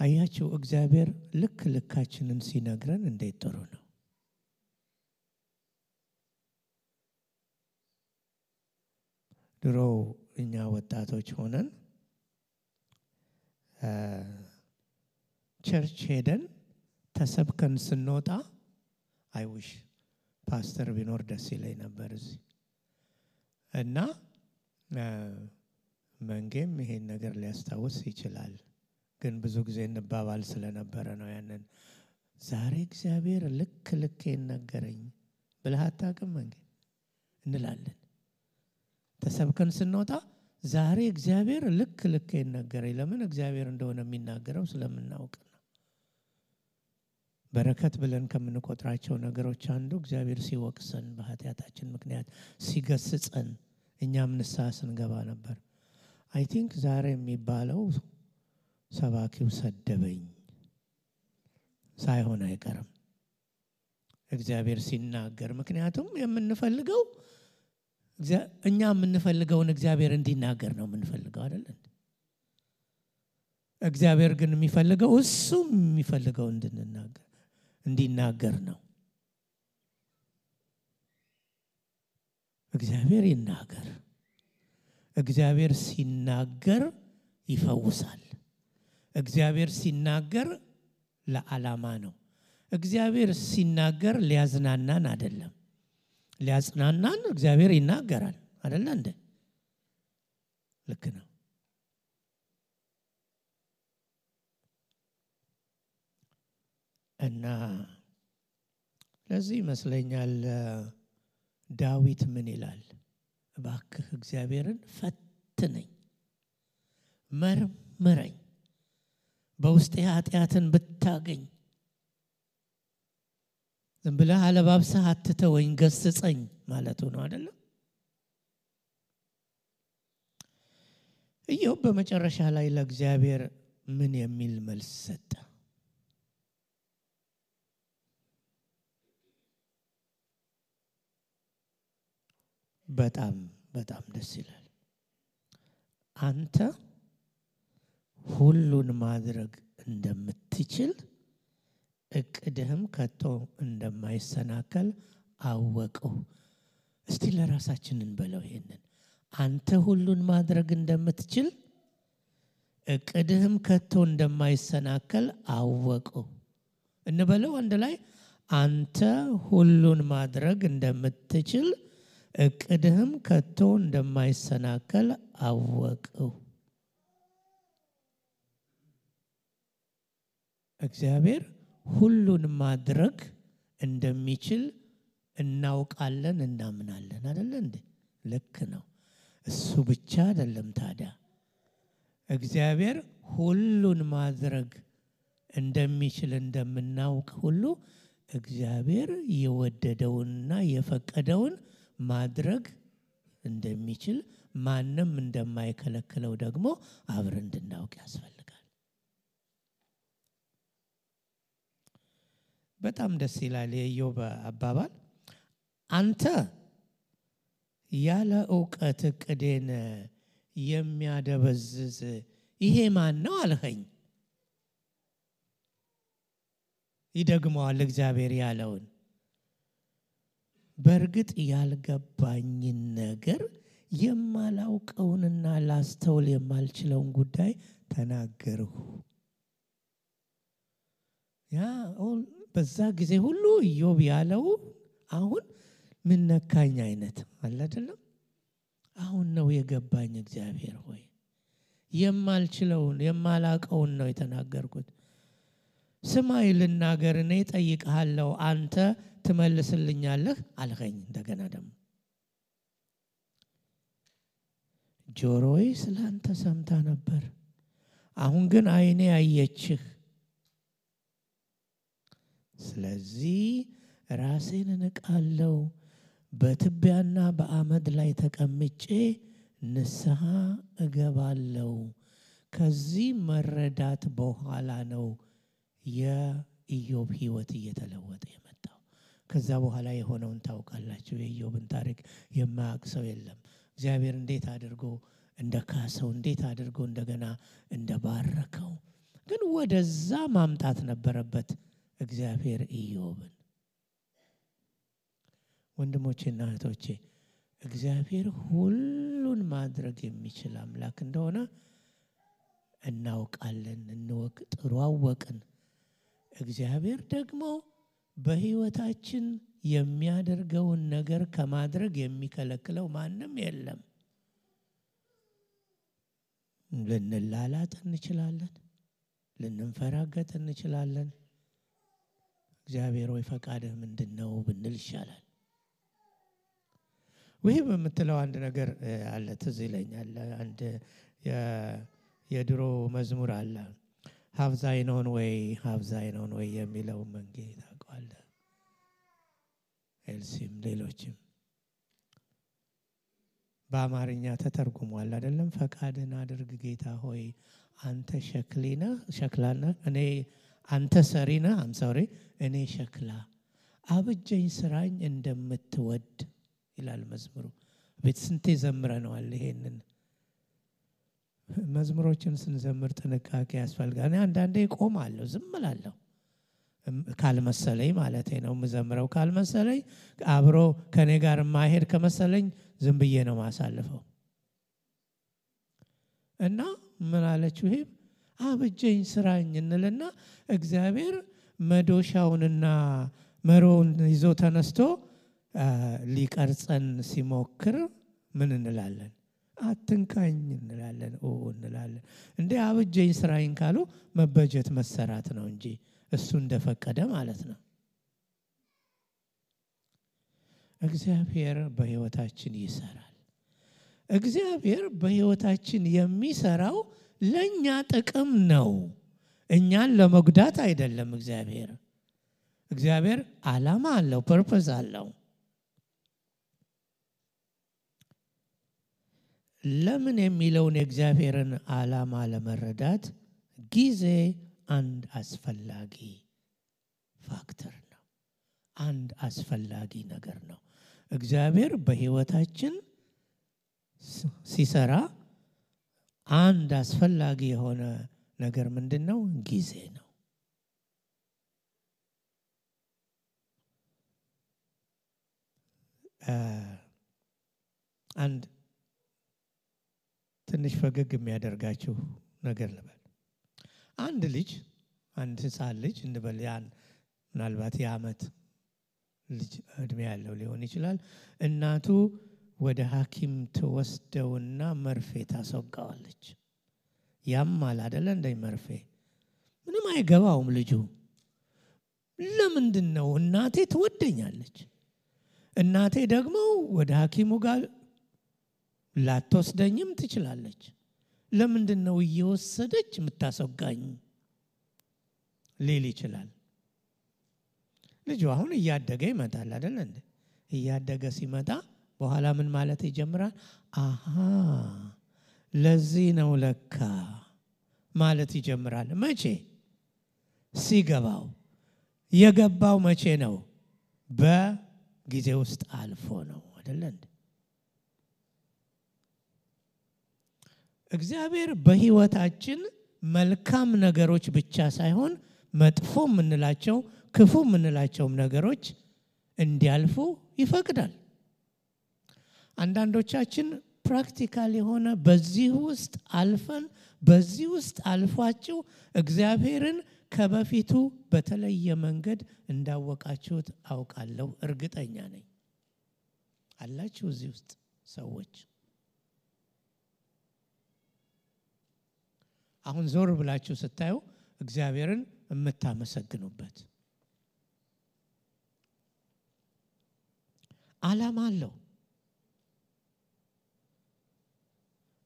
አያችሁ፣ እግዚአብሔር ልክ ልካችንን ሲነግረን እንዴት ጥሩ ነው። ድሮ እኛ ወጣቶች ሆነን ቸርች ሄደን ተሰብከን ስንወጣ አይውሽ ፓስተር ቢኖር ደስ ይለኝ ነበር እዚህ እና መንጌም ይሄን ነገር ሊያስታውስ ይችላል። ግን ብዙ ጊዜ እንባባል ስለነበረ ነው ያንን። ዛሬ እግዚአብሔር ልኬን ነገረኝ ብለህ አታውቅም እንዴ እንላለን። ተሰብከን ስንወጣ ዛሬ እግዚአብሔር ልክ ይናገራል። ለምን እግዚአብሔር እንደሆነ የሚናገረው ስለምናውቅ ነው። በረከት ብለን ከምንቆጥራቸው ነገሮች አንዱ እግዚአብሔር ሲወቅሰን በኃጢአታችን ምክንያት ሲገስጸን እኛም ንስሐ ስንገባ ነበር። አይ ቲንክ ዛሬ የሚባለው ሰባኪው ሰደበኝ ሳይሆን አይቀርም እግዚአብሔር ሲናገር። ምክንያቱም የምንፈልገው እኛ የምንፈልገውን እግዚአብሔር እንዲናገር ነው የምንፈልገው አይደል እንዴ? እግዚአብሔር ግን የሚፈልገው እሱ የሚፈልገው እንዲናገር ነው። እግዚአብሔር ይናገር። እግዚአብሔር ሲናገር ይፈውሳል። እግዚአብሔር ሲናገር ለዓላማ ነው። እግዚአብሔር ሲናገር ሊያዝናናን አይደለም። ሊያጽናናን እግዚአብሔር ይናገራል አይደል እንዴ? ልክ ነው። እና ለዚህ ይመስለኛል ዳዊት ምን ይላል? እባክህ እግዚአብሔርን ፈትነኝ፣ መርምረኝ፣ በውስጤ ኃጢአትን ብታገኝ ዝም ብለህ አለባብሰህ አትተወኝ፣ ገስጸኝ ማለቱ ነው አይደለም? ኢዮብ በመጨረሻ ላይ ለእግዚአብሔር ምን የሚል መልስ ሰጠ? በጣም ደስ ይላል። አንተ ሁሉን ማድረግ እንደምትችል እቅድህም ከቶ እንደማይሰናከል አወቀው። እስቲ ለራሳችን እንበለው ይሄንን። አንተ ሁሉን ማድረግ እንደምትችል እቅድህም ከቶ እንደማይሰናከል አወቀው እንበለው አንድ ላይ። አንተ ሁሉን ማድረግ እንደምትችል እቅድህም ከቶ እንደማይሰናከል አወቀው። እግዚአብሔር ሁሉን ማድረግ እንደሚችል እናውቃለን፣ እናምናለን አይደል እንዴ? ልክ ነው። እሱ ብቻ አይደለም ታዲያ እግዚአብሔር ሁሉን ማድረግ እንደሚችል እንደምናውቅ ሁሉ እግዚአብሔር የወደደውንና የፈቀደውን ማድረግ እንደሚችል ማንም እንደማይከለክለው ደግሞ አብረን እንድናውቅ ያስፈልጋል። በጣም ደስ ይላል የኢዮብ አባባል። አንተ ያለ ዕውቀት እቅዴን የሚያደበዝዝ ይሄ ማን ነው አልኸኝ። ይደግመዋል እግዚአብሔር ያለውን። በእርግጥ ያልገባኝን ነገር የማላውቀውንና ላስተውል የማልችለውን ጉዳይ ተናገርሁ። ያ በዛ ጊዜ ሁሉ ኢዮብ ያለው አሁን ምን ነካኝ አይነት አለ አይደለም? አሁን ነው የገባኝ እግዚአብሔር ሆይ የማልችለውን የማላውቀውን ነው የተናገርኩት። ስማይ ልናገር፣ እኔ እጠይቅሃለሁ፣ አንተ ትመልስልኛለህ አልኸኝ። እንደገና ደግሞ ጆሮዬ ስላንተ ሰምታ ነበር፣ አሁን ግን ዓይኔ አየችህ። ስለዚህ ራሴን እንቃለሁ፣ በትቢያና በአመድ ላይ ተቀምጬ ንስሐ እገባለሁ። ከዚህ መረዳት በኋላ ነው የኢዮብ ሕይወት እየተለወጠ የመጣው። ከዛ በኋላ የሆነውን ታውቃላችሁ። የኢዮብን ታሪክ የማያውቅ ሰው የለም። እግዚአብሔር እንዴት አድርጎ እንደካሰው፣ እንዴት አድርጎ እንደገና እንደባረከው። ግን ወደዛ ማምጣት ነበረበት እግዚአብሔር ኢዮብን። ወንድሞቼና እህቶቼ እግዚአብሔር ሁሉን ማድረግ የሚችል አምላክ እንደሆነ እናውቃለን። እንወቅ፣ ጥሩ አወቅን። እግዚአብሔር ደግሞ በሕይወታችን የሚያደርገውን ነገር ከማድረግ የሚከለክለው ማንም የለም። ልንላላጥ እንችላለን፣ ልንፈራገጥ እንችላለን። እግዚአብሔር ወይ ፈቃድህ ምንድነው ብንል ይሻላል። ወይ በምትለው አንድ ነገር አለ ትዝ ይለኛል። አንድ የድሮ መዝሙር አለ ሀብዛይነውን ወይ የሚለው መንጌ ታውቀዋለህ? ኤልሲም ሌሎችም በአማርኛ ተተርጉሟል አይደለም? ፈቃድን አድርግ ጌታ ሆይ አንተ ሸክላና እኔ አንተ ሰሪና እኔ ሸክላ አብጀኝ ስራኝ እንደምትወድ ይላል መዝሙሩ። ቤት ስንቴ ዘምረነዋል ይሄንን። መዝሙሮችን ስንዘምር ጥንቃቄ ያስፈልጋል። እኔ አንዳንዴ ቆማለሁ፣ ዝም እላለሁ ካልመሰለኝ ማለት ነው። የምዘምረው ካልመሰለኝ አብሮ ከኔ ጋር ማሄድ ከመሰለኝ ዝም ብዬ ነው ማሳልፈው። እና ምን አለችው? ይሄ አብጀኝ ስራኝ እንልና እግዚአብሔር መዶሻውንና መሮውን ይዞ ተነስቶ ሊቀርጸን ሲሞክር ምን እንላለን? አትንካኝ እንላለን፣ እንላለን። እንዴ አብጀኝ ስራኝ ካሉ መበጀት መሰራት ነው እንጂ እሱ እንደፈቀደ ማለት ነው። እግዚአብሔር በህይወታችን ይሰራል። እግዚአብሔር በህይወታችን የሚሰራው ለኛ ጥቅም ነው፣ እኛን ለመጉዳት አይደለም። እግዚአብሔር ዓላማ አለው፣ ፐርፐዝ አለው። ለምን የሚለውን የእግዚአብሔርን ዓላማ ለመረዳት ጊዜ አንድ አስፈላጊ ፋክተር ነው፣ አንድ አስፈላጊ ነገር ነው። እግዚአብሔር በህይወታችን ሲሰራ አንድ አስፈላጊ የሆነ ነገር ምንድነው? ጊዜ ነው። አንድ ትንሽ ፈገግ የሚያደርጋችሁ ነገር ልበል። አንድ ህፃን ልጅ እንበል፣ ያን ምናልባት የዓመት ልጅ እድሜ ያለው ሊሆን ይችላል። እናቱ ወደ ሐኪም ትወስደውና መርፌ ታስወጋዋለች። ያማል አይደለ? እንደ መርፌ ምንም አይገባውም ልጁ። ለምንድነው? እናቴ ትወደኛለች፣ እናቴ ደግሞ ወደ ሐኪሙ ጋር ላትወስደኝም ትችላለች። ለምንድነው እየወሰደች የምታስወጋኝ ሊል ይችላል። ልጁ አሁን እያደገ ይመጣል አይደል እንዴ? እያደገ ሲመጣ በኋላ ምን ማለት ይጀምራል? አሃ ለዚህ ነው ለካ ማለት ይጀምራል። መቼ? ሲገባው። የገባው መቼ ነው? በጊዜ ውስጥ አልፎ ነው አይደል እንዴ? እግዚአብሔር በህይወታችን መልካም ነገሮች ብቻ ሳይሆን መጥፎ ምንላቸው ክፉ ምንላቸውም ነገሮች እንዲያልፉ ይፈቅዳል። አንዳንዶቻችን ፕራክቲካል የሆነ በዚህ ውስጥ አልፋችሁ እግዚአብሔርን ከበፊቱ በተለየ መንገድ እንዳወቃችሁት አውቃለሁ፣ እርግጠኛ ነኝ። አላችሁ እዚህ ውስጥ ሰዎች አሁን ዞር ብላችሁ ስታዩ እግዚአብሔርን የምታመሰግኑበት ዓላማ አለው።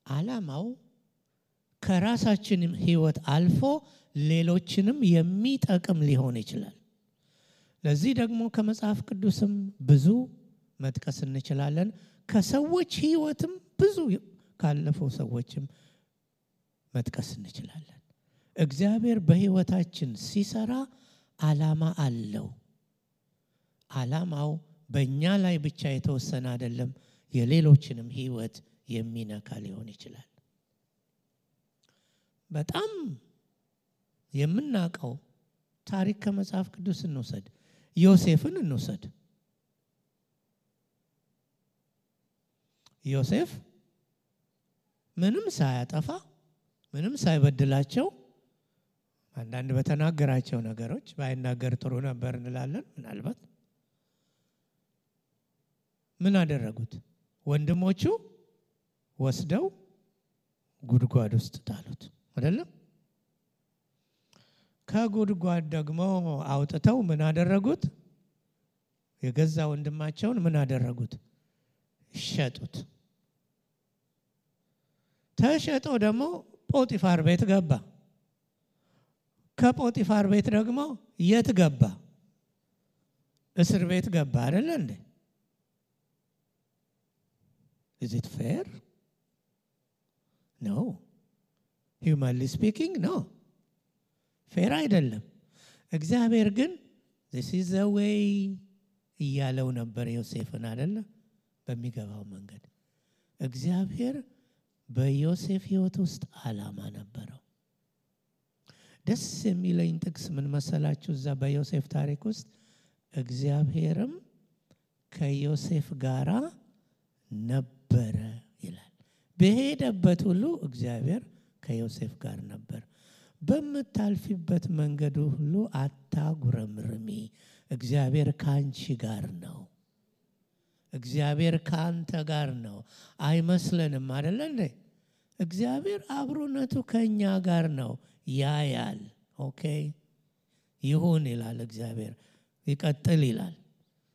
ዓላማው ከራሳችን ህይወት አልፎ ሌሎችንም የሚጠቅም ሊሆን ይችላል። ለዚህ ደግሞ ከመጽሐፍ ቅዱስም ብዙ መጥቀስ እንችላለን። ከሰዎች ህይወትም ብዙ ካለፈው ሰዎችም መጥቀስ እንችላለን። እግዚአብሔር በህይወታችን ሲሰራ ዓላማ አለው። ዓላማው በእኛ ላይ ብቻ የተወሰነ አይደለም፣ የሌሎችንም ህይወት የሚነካ ሊሆን ይችላል። በጣም የምናውቀው ታሪክ ከመጽሐፍ ቅዱስ እንውሰድ። ዮሴፍን እንውሰድ። ዮሴፍ ምንም ሳያጠፋ ምንም ሳይበድላቸው አንዳንድ በተናገራቸው ነገሮች ባይናገር ጥሩ ነበር እንላለን። ምናልባት ምን አደረጉት? ወንድሞቹ ወስደው ጉድጓድ ውስጥ ጣሉት አይደለም? ከጉድጓድ ደግሞ አውጥተው ምን አደረጉት? የገዛ ወንድማቸውን ምን አደረጉት? ሸጡት። ተሸጦ ደግሞ ጶጢፋር ቤት ገባ። ከጶጢፋር ቤት ደግሞ የት ገባ? እስር ቤት ገባ አይደል እንዴ? Is it fair? No. Humanly speaking, no. ፌር አይደለም። እግዚአብሔር ግን this is the way እያለው ነበር ዮሴፍን አይደለ? በሚገባው መንገድ እግዚአብሔር በዮሴፍ ሕይወት ውስጥ ዓላማ ነበረው። ደስ የሚለኝ ጥቅስ ምን መሰላችሁ? እዛ በዮሴፍ ታሪክ ውስጥ እግዚአብሔርም ከዮሴፍ ጋራ ነበረ ይላል። በሄደበት ሁሉ እግዚአብሔር ከዮሴፍ ጋር ነበር። በምታልፊበት መንገድ ሁሉ አታጉረምርሚ፣ እግዚአብሔር ካንቺ ጋር ነው። እግዚአብሔር ካንተ ጋር ነው። አይመስለንም አይደል እንዴ? እግዚአብሔር አብሮነቱ ከኛ ጋር ነው። ያያል። ኦኬ ይሁን ይላል እግዚአብሔር። ይቀጥል ይላል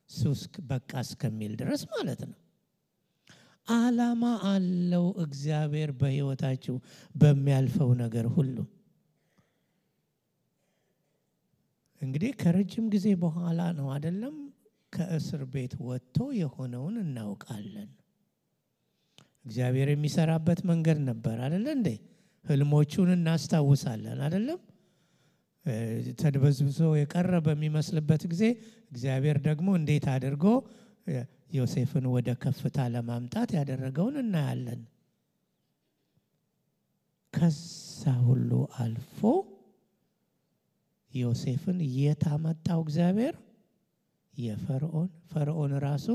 ሱስ በቃ እስከሚል ድረስ ማለት ነው። ዓላማ አለው እግዚአብሔር በሕይወታችሁ በሚያልፈው ነገር ሁሉ። እንግዲህ ከረጅም ጊዜ በኋላ ነው አይደለም ከእስር ቤት ወጥቶ የሆነውን እናውቃለን። እግዚአብሔር የሚሰራበት መንገድ ነበር አይደል እንዴ? ህልሞቹን እናስታውሳለን አይደለም? ተድበዝብዞ የቀረ በሚመስልበት ጊዜ እግዚአብሔር ደግሞ እንዴት አድርጎ ዮሴፍን ወደ ከፍታ ለማምጣት ያደረገውን እናያለን። ከዛ ሁሉ አልፎ ዮሴፍን የታመጣው እግዚአብሔር ፈርዖን ራሱ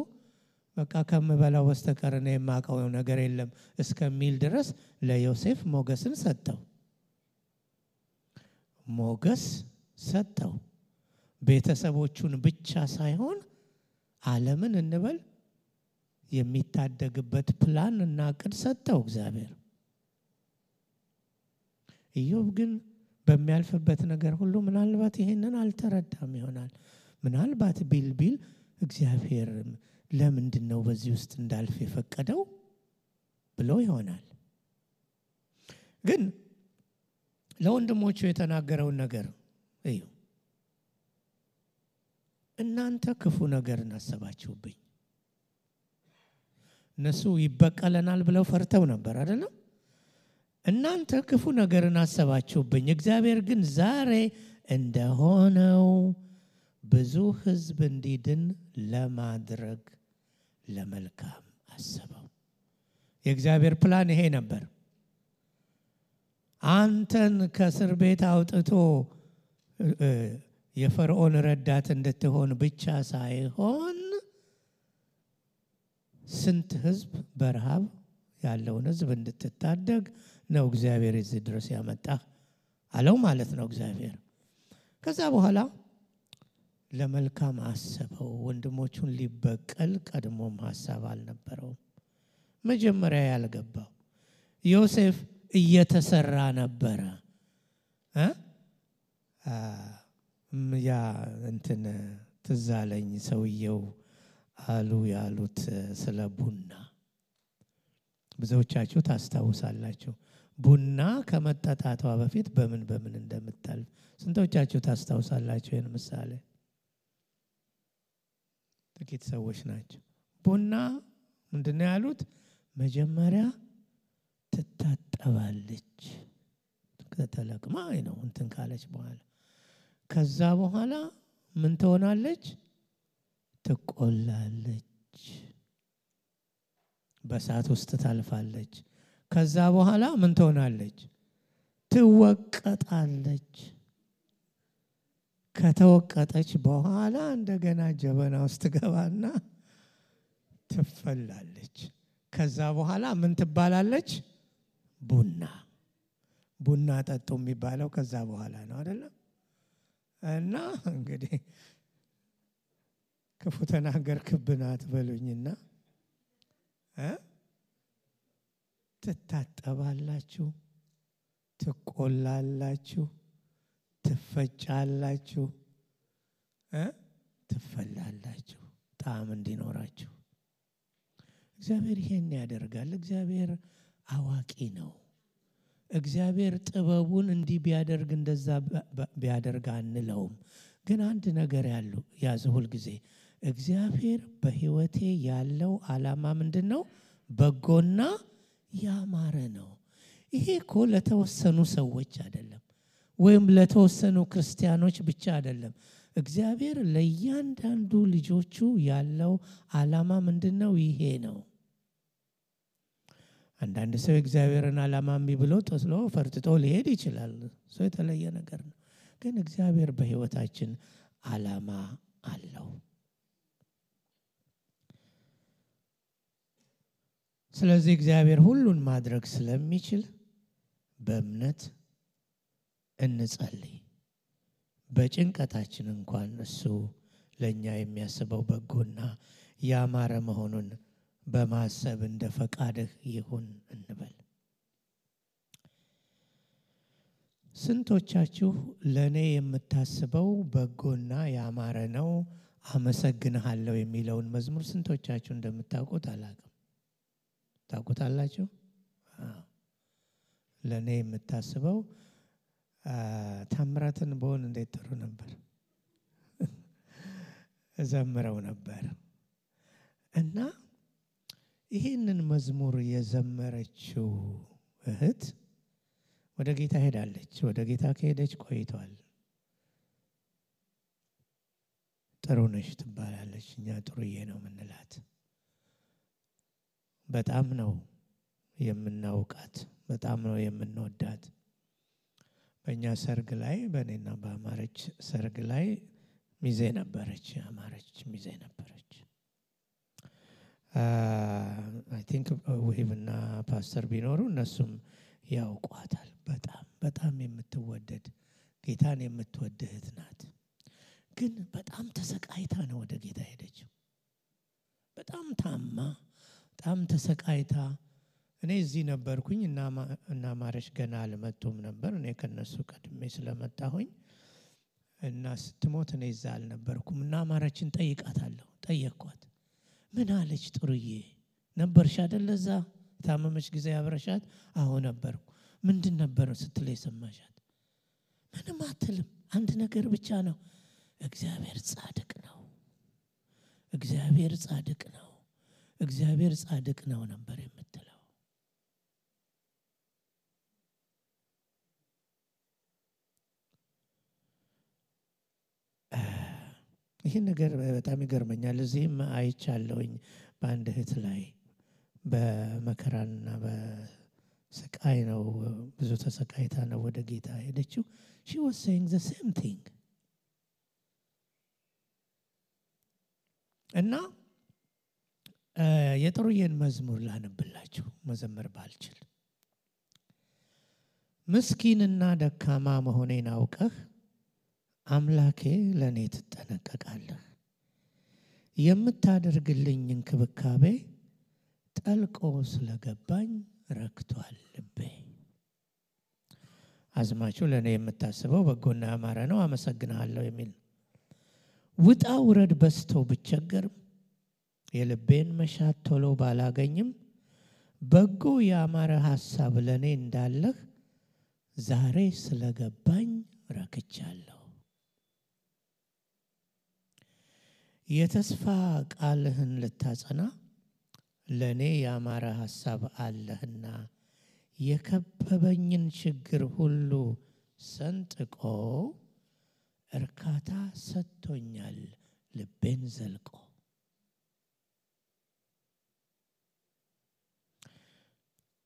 በቃ ከምበላው በስተቀር እኔ የማውቀው ነገር የለም እስከሚል ድረስ ለዮሴፍ ሞገስን ሰጠው። ሞገስ ሰጠው። ቤተሰቦቹን ብቻ ሳይሆን ዓለምን እንበል የሚታደግበት ፕላን እና ዕቅድ ሰጠው እግዚአብሔር። ኢዮብ ግን በሚያልፍበት ነገር ሁሉ ምናልባት ይሄንን አልተረዳም ይሆናል። ምናልባት ቢል እግዚአብሔር ለምንድነው በዚህ ውስጥ እንዳልፍ የፈቀደው ብሎ ይሆናል። ግን ለወንድሞቹ የተናገረውን ነገር እዩ። እናንተ ክፉ ነገርን አሰባችሁብኝ። እነሱ ይበቀለናል ብለው ፈርተው ነበር አይደለም? እናንተ ክፉ ነገርን አሰባችሁብኝ፣ እግዚአብሔር ግን ዛሬ እንደሆነው ብዙ ሕዝብ እንዲድን ለማድረግ ለመልካም አሰበው። የእግዚአብሔር ፕላን ይሄ ነበር። አንተን ከእስር ቤት አውጥቶ የፈርዖን ረዳት እንድትሆን ብቻ ሳይሆን ስንት ሕዝብ በረሃብ ያለውን ሕዝብ እንድትታደግ ነው እግዚአብሔር እዚህ ድረስ ያመጣ አለው ማለት ነው እግዚአብሔር። ከዛ በኋላ ለመልካም አሰበው። ወንድሞቹን ሊበቀል ቀድሞም ሐሳብ አልነበረውም። መጀመሪያ ያልገባው ዮሴፍ እየተሰራ ነበረ። ያ እንትን ትዝ አለኝ ሰውየው አሉ ያሉት ስለ ቡና ብዙዎቻችሁ ታስታውሳላችሁ። ቡና ከመጠጣቷ በፊት በምን እንደምታልፍ ስንቶቻችሁ ታስታውሳላችሁ? ይሄን ምሳሌ ጥቂት ሰዎች ናቸው። ቡና ምንድነው ያሉት? መጀመሪያ ትታጠባለች ከተለቅማ ነው እንትን ካለች በኋላ ከዛ በኋላ ምን ትሆናለች? ትቆላለች፣ በእሳት ውስጥ ታልፋለች። ከዛ በኋላ ምን ትሆናለች? ትወቀጣለች። ከተወቀጠች በኋላ እንደገና ጀበና ውስጥ ገባና ትፈላለች። ከዛ በኋላ ምን ትባላለች? ቡና ጠጡ የሚባለው ከዛ በኋላ ነው አይደለም? እና እንግዲህ ክፉ ተናገርክብን አትበሉኝና ትታጠባላችሁ፣ ትቆላላችሁ፣ ትፈጫላችሁ፣ ትፈላላችሁ ጣዕም እንዲኖራችሁ። እግዚአብሔር ይሄን ያደርጋል። እግዚአብሔር አዋቂ ነው። እግዚአብሔር ጥበቡን እንዲህ ቢያደርግ እንደዛ ቢያደርግ አንለውም። ግን አንድ ነገር ያዘ ሁል ጊዜ እግዚአብሔር በህይወቴ ያለው ዓላማ ምንድነው? በጎና ያማረ ነው። ይሄ እኮ ለተወሰኑ ሰዎች አይደለም፣ ወይም ለተወሰኑ ክርስቲያኖች ብቻ አይደለም። እግዚአብሔር ለእያንዳንዱ ልጆቹ ያለው ዓላማ ምንድነው? ይሄ ነው። አንዳንድ ሰው እግዚአብሔርን ዓላማ እምቢ ብሎ ጥሎ ፈርጥጦ ሊሄድ ይችላል። ሰው የተለየ ነገር ነው። ግን እግዚአብሔር በህይወታችን ዓላማ አለው። ስለዚህ እግዚአብሔር ሁሉን ማድረግ ስለሚችል በእምነት እንጸልይ። በጭንቀታችን እንኳን እሱ ለኛ የሚያስበው በጎና ያማረ መሆኑን በማሰብ እንደ ፈቃድህ ይሁን እንበል። ስንቶቻችሁ ለኔ የምታስበው በጎና ያማረ ነው አመሰግንሃለሁ የሚለውን መዝሙር ስንቶቻችሁ እንደምታውቁት አላውቅም። ታውቁታላችሁ? ለኔ የምታስበው ታምራትን በሆን እንዴት ጥሩ ነበር እዘምረው ነበር። እና ይህንን መዝሙር የዘመረችው እህት ወደ ጌታ ሄዳለች። ወደ ጌታ ከሄደች ቆይቷል። ጥሩ ነሽ ትባላለች። እኛ ጥሩዬ ነው የምንላት። በጣም ነው የምናውቃት፣ በጣም ነው የምንወዳት። በእኛ ሰርግ ላይ በእኔና በአማረች ሰርግ ላይ ሚዜ ነበረች። አማረች ሚዜ ነበረች። አይ ቲንክ ወይብና ፓስተር ቢኖሩ እነሱም ያውቋታል። በጣም የምትወደድ ጌታን የምትወድ እህት ናት። ግን በጣም ተሰቃይታ ነው ወደ ጌታ ሄደችው። በጣም ታማ፣ በጣም ተሰቃይታ። እኔ እዚህ ነበርኩኝ እና ማረሽ ገና አልመጡም ነበር። እኔ ከነሱ ቀድሜ ስለመጣሁኝ እና ስትሞት እኔ እዛ አልነበርኩም። እና ማረችን ጠይቃታለሁ። ጠየቅኳት። ምን አለች? ጥሩዬ ነበርሽ አይደል እዛ ታመመች ጊዜ አብረሻት? አዎ ነበርኩ። ምንድን ነበር ስትል የሰማሻት? ምንም አትልም። አንድ ነገር ብቻ ነው፣ እግዚአብሔር ጻድቅ ነው፣ እግዚአብሔር ጻድቅ ነው፣ እግዚአብሔር ጻድቅ ነው ነበር የምትለው። ይህን ነገር በጣም ይገርመኛል። እዚህም አይቻለሁኝ በአንድ እህት ላይ በመከራና በስቃይ ነው፣ ብዙ ተሰቃይታ ነው ወደ ጌታ ሄደችው። she was saying the same thing። እና የጥሩዬን መዝሙር ላነብላችሁ መዘመር ባልችል። ምስኪንና ደካማ መሆኔን አውቀህ አምላኬ ለኔ ትጠነቀቃለህ። የምታደርግልኝ እንክብካቤ ጠልቆ ስለገባኝ ረክቷል ልቤ። አዝማቹ ለኔ የምታስበው በጎና ያማረ ነው አመሰግናለሁ የሚል። ውጣ ውረድ በስቶ ብቸገርም የልቤን መሻት ቶሎ ባላገኝም በጎ ያማረ ሐሳብ ለኔ እንዳለህ ዛሬ ስለገባኝ ረክቻለሁ። የተስፋ ቃልህን ልታጸና ለኔ ያማረ ሐሳብ አለህና የከበበኝን ችግር ሁሉ ሰንጥቆ እርካታ ሰጥቶኛል ልቤን ዘልቆ።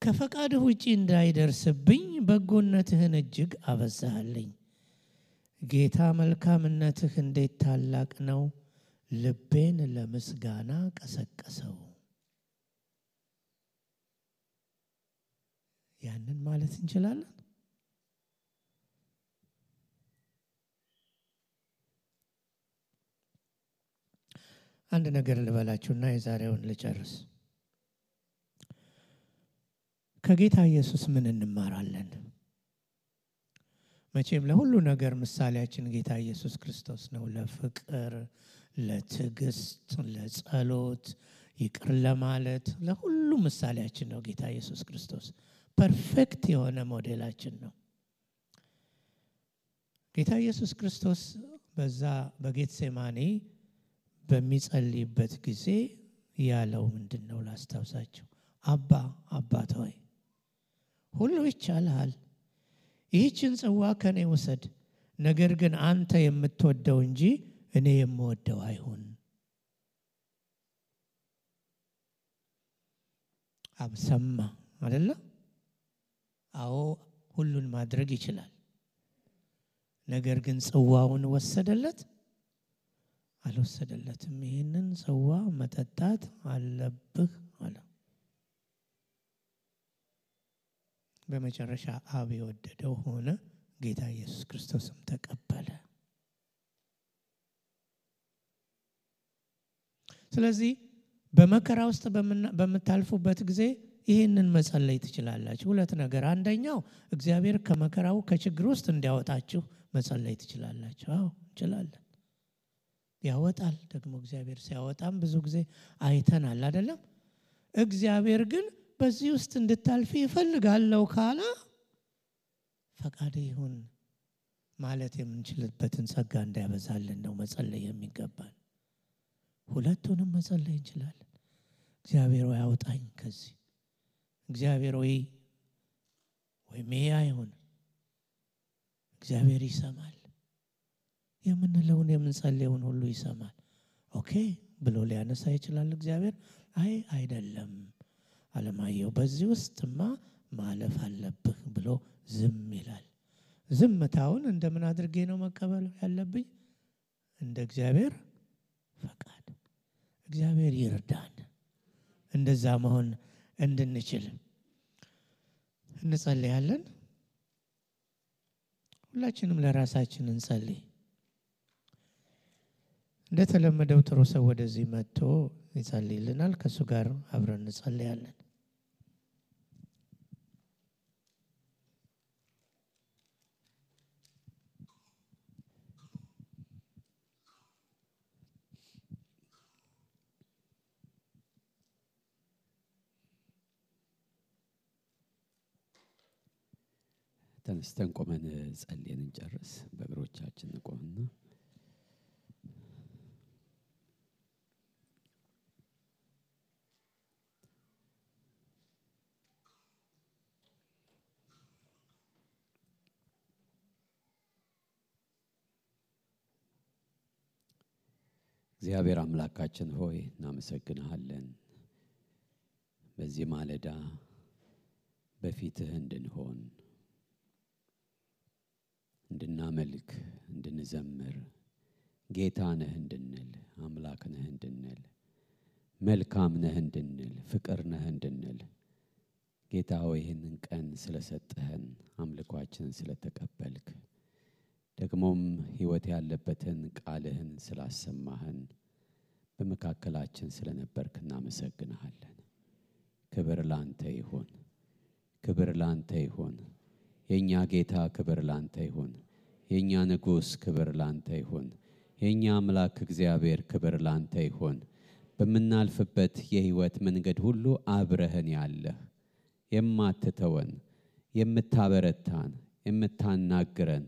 ከፈቃድህ ውጪ እንዳይደርስብኝ በጎነትህን እጅግ አበዛህልኝ። ጌታ መልካምነትህ እንዴት ታላቅ ነው፣ ልቤን ለምስጋና ቀሰቀሰው። ያንን ማለት እንችላለን። አንድ ነገር ልበላችሁና የዛሬውን ልጨርስ። ከጌታ ኢየሱስ ምን እንማራለን? መቼም ለሁሉ ነገር ምሳሌያችን ጌታ ኢየሱስ ክርስቶስ ነው። ለፍቅር፣ ለትዕግስት፣ ለጸሎት ይቅር ለማለት ለሁሉ ምሳሌያችን ነው ጌታ ኢየሱስ ክርስቶስ። ፐርፌክት የሆነ ሞዴላችን ነው። ጌታ ኢየሱስ ክርስቶስ በዛ በጌትሴማኒ በሚጸልይበት ጊዜ ያለው ምንድነው ላስታውሳችሁ? አባት ሆይ ሁሉ ይቻላል፣ ይህችን ጽዋ ከኔ ወሰድ፣ ነገር ግን አንተ የምትወደው እንጂ እኔ የምወደው አይሁን። ሰማ አይደለ? አዎ ሁሉን ማድረግ ይችላል። ነገር ግን ጽዋውን ወሰደለት? አልወሰደለትም። ይህንን ጽዋ መጠጣት አለብህ አለ። በመጨረሻ አብ የወደደው ሆነ። ጌታ ኢየሱስ ክርስቶስም ተቀበለ። ስለዚህ በመከራ ውስጥ በመታልፉበት ጊዜ ይህንን መጸለይ ትችላላችሁ። ሁለት ነገር፣ አንደኛው እግዚአብሔር ከመከራው ከችግር ውስጥ እንዲያወጣችሁ መጸለይ ትችላላችሁ። አዎ እንችላለን። ያወጣል ደግሞ እግዚአብሔር ሲያወጣም ብዙ ጊዜ አይተናል አይደለም? እግዚአብሔር ግን በዚህ ውስጥ እንድታልፊ ይፈልጋለሁ ካለ ፈቃድ ይሁን ማለት የምንችልበትን ጸጋ እንዲያበዛልን ነው መጸለይ የሚገባን። ሁለቱንም መጸለይ እንችላለን። እግዚአብሔር ሆይ አውጣኝ ከዚህ፣ እግዚአብሔር ሆይ ወይም ይሄ አይሁን። እግዚአብሔር ይሰማል። የምንለውን የምንጸልየውን ሁሉ ይሰማል። ኦኬ ብሎ ሊያነሳ ይችላል እግዚአብሔር። አይ አይደለም አለማየሁ በዚህ ውስጥማ ማለፍ አለብህ ብሎ ዝም ይላል። ዝምታውን እንደምን አድርጌ ነው መቀበል ያለብኝ? እንደ እግዚአብሔር ፈቃድ። እግዚአብሔር ይርዳን እንደዛ መሆን እንድንችል። እንጸልያለን። ሁላችንም ለራሳችን እንጸልይ። እንደተለመደው ጥሩ ሰው ወደዚህ መጥቶ ይጸልይልናል። ከሱ ጋር አብረን እንጸልያለን። ተነስተን ቆመን ጸልየን እንጨርስ። በእግሮቻችን ቆመን እግዚአብሔር አምላካችን ሆይ እናመሰግንሃለን። በዚህ ማለዳ በፊትህ እንድንሆን፣ እንድናመልክ፣ እንድንዘምር፣ ጌታ ነህ እንድንል፣ አምላክ ነህ እንድንል፣ መልካም ነህ እንድንል፣ ፍቅር ነህ እንድንል ጌታ ሆይ ይህንን ቀን ስለሰጠህን፣ አምልኳችንን ስለተቀበልክ፣ ደግሞም ሕይወት ያለበትን ቃልህን ስላሰማህን፣ በመካከላችን ስለነበርክ እናመሰግንሃለን። ክብር ላንተ ይሁን፣ ክብር ላንተ ይሁን። የኛ ጌታ ክብር ላንተ ይሁን። የኛ ንጉስ ክብር ላንተ ይሁን። የኛ አምላክ እግዚአብሔር ክብር ላንተ ይሁን። በመናልፍበት የሕይወት መንገድ ሁሉ አብረህን ያለህ፣ የማትተወን፣ የምታበረታን፣ የምታናግረን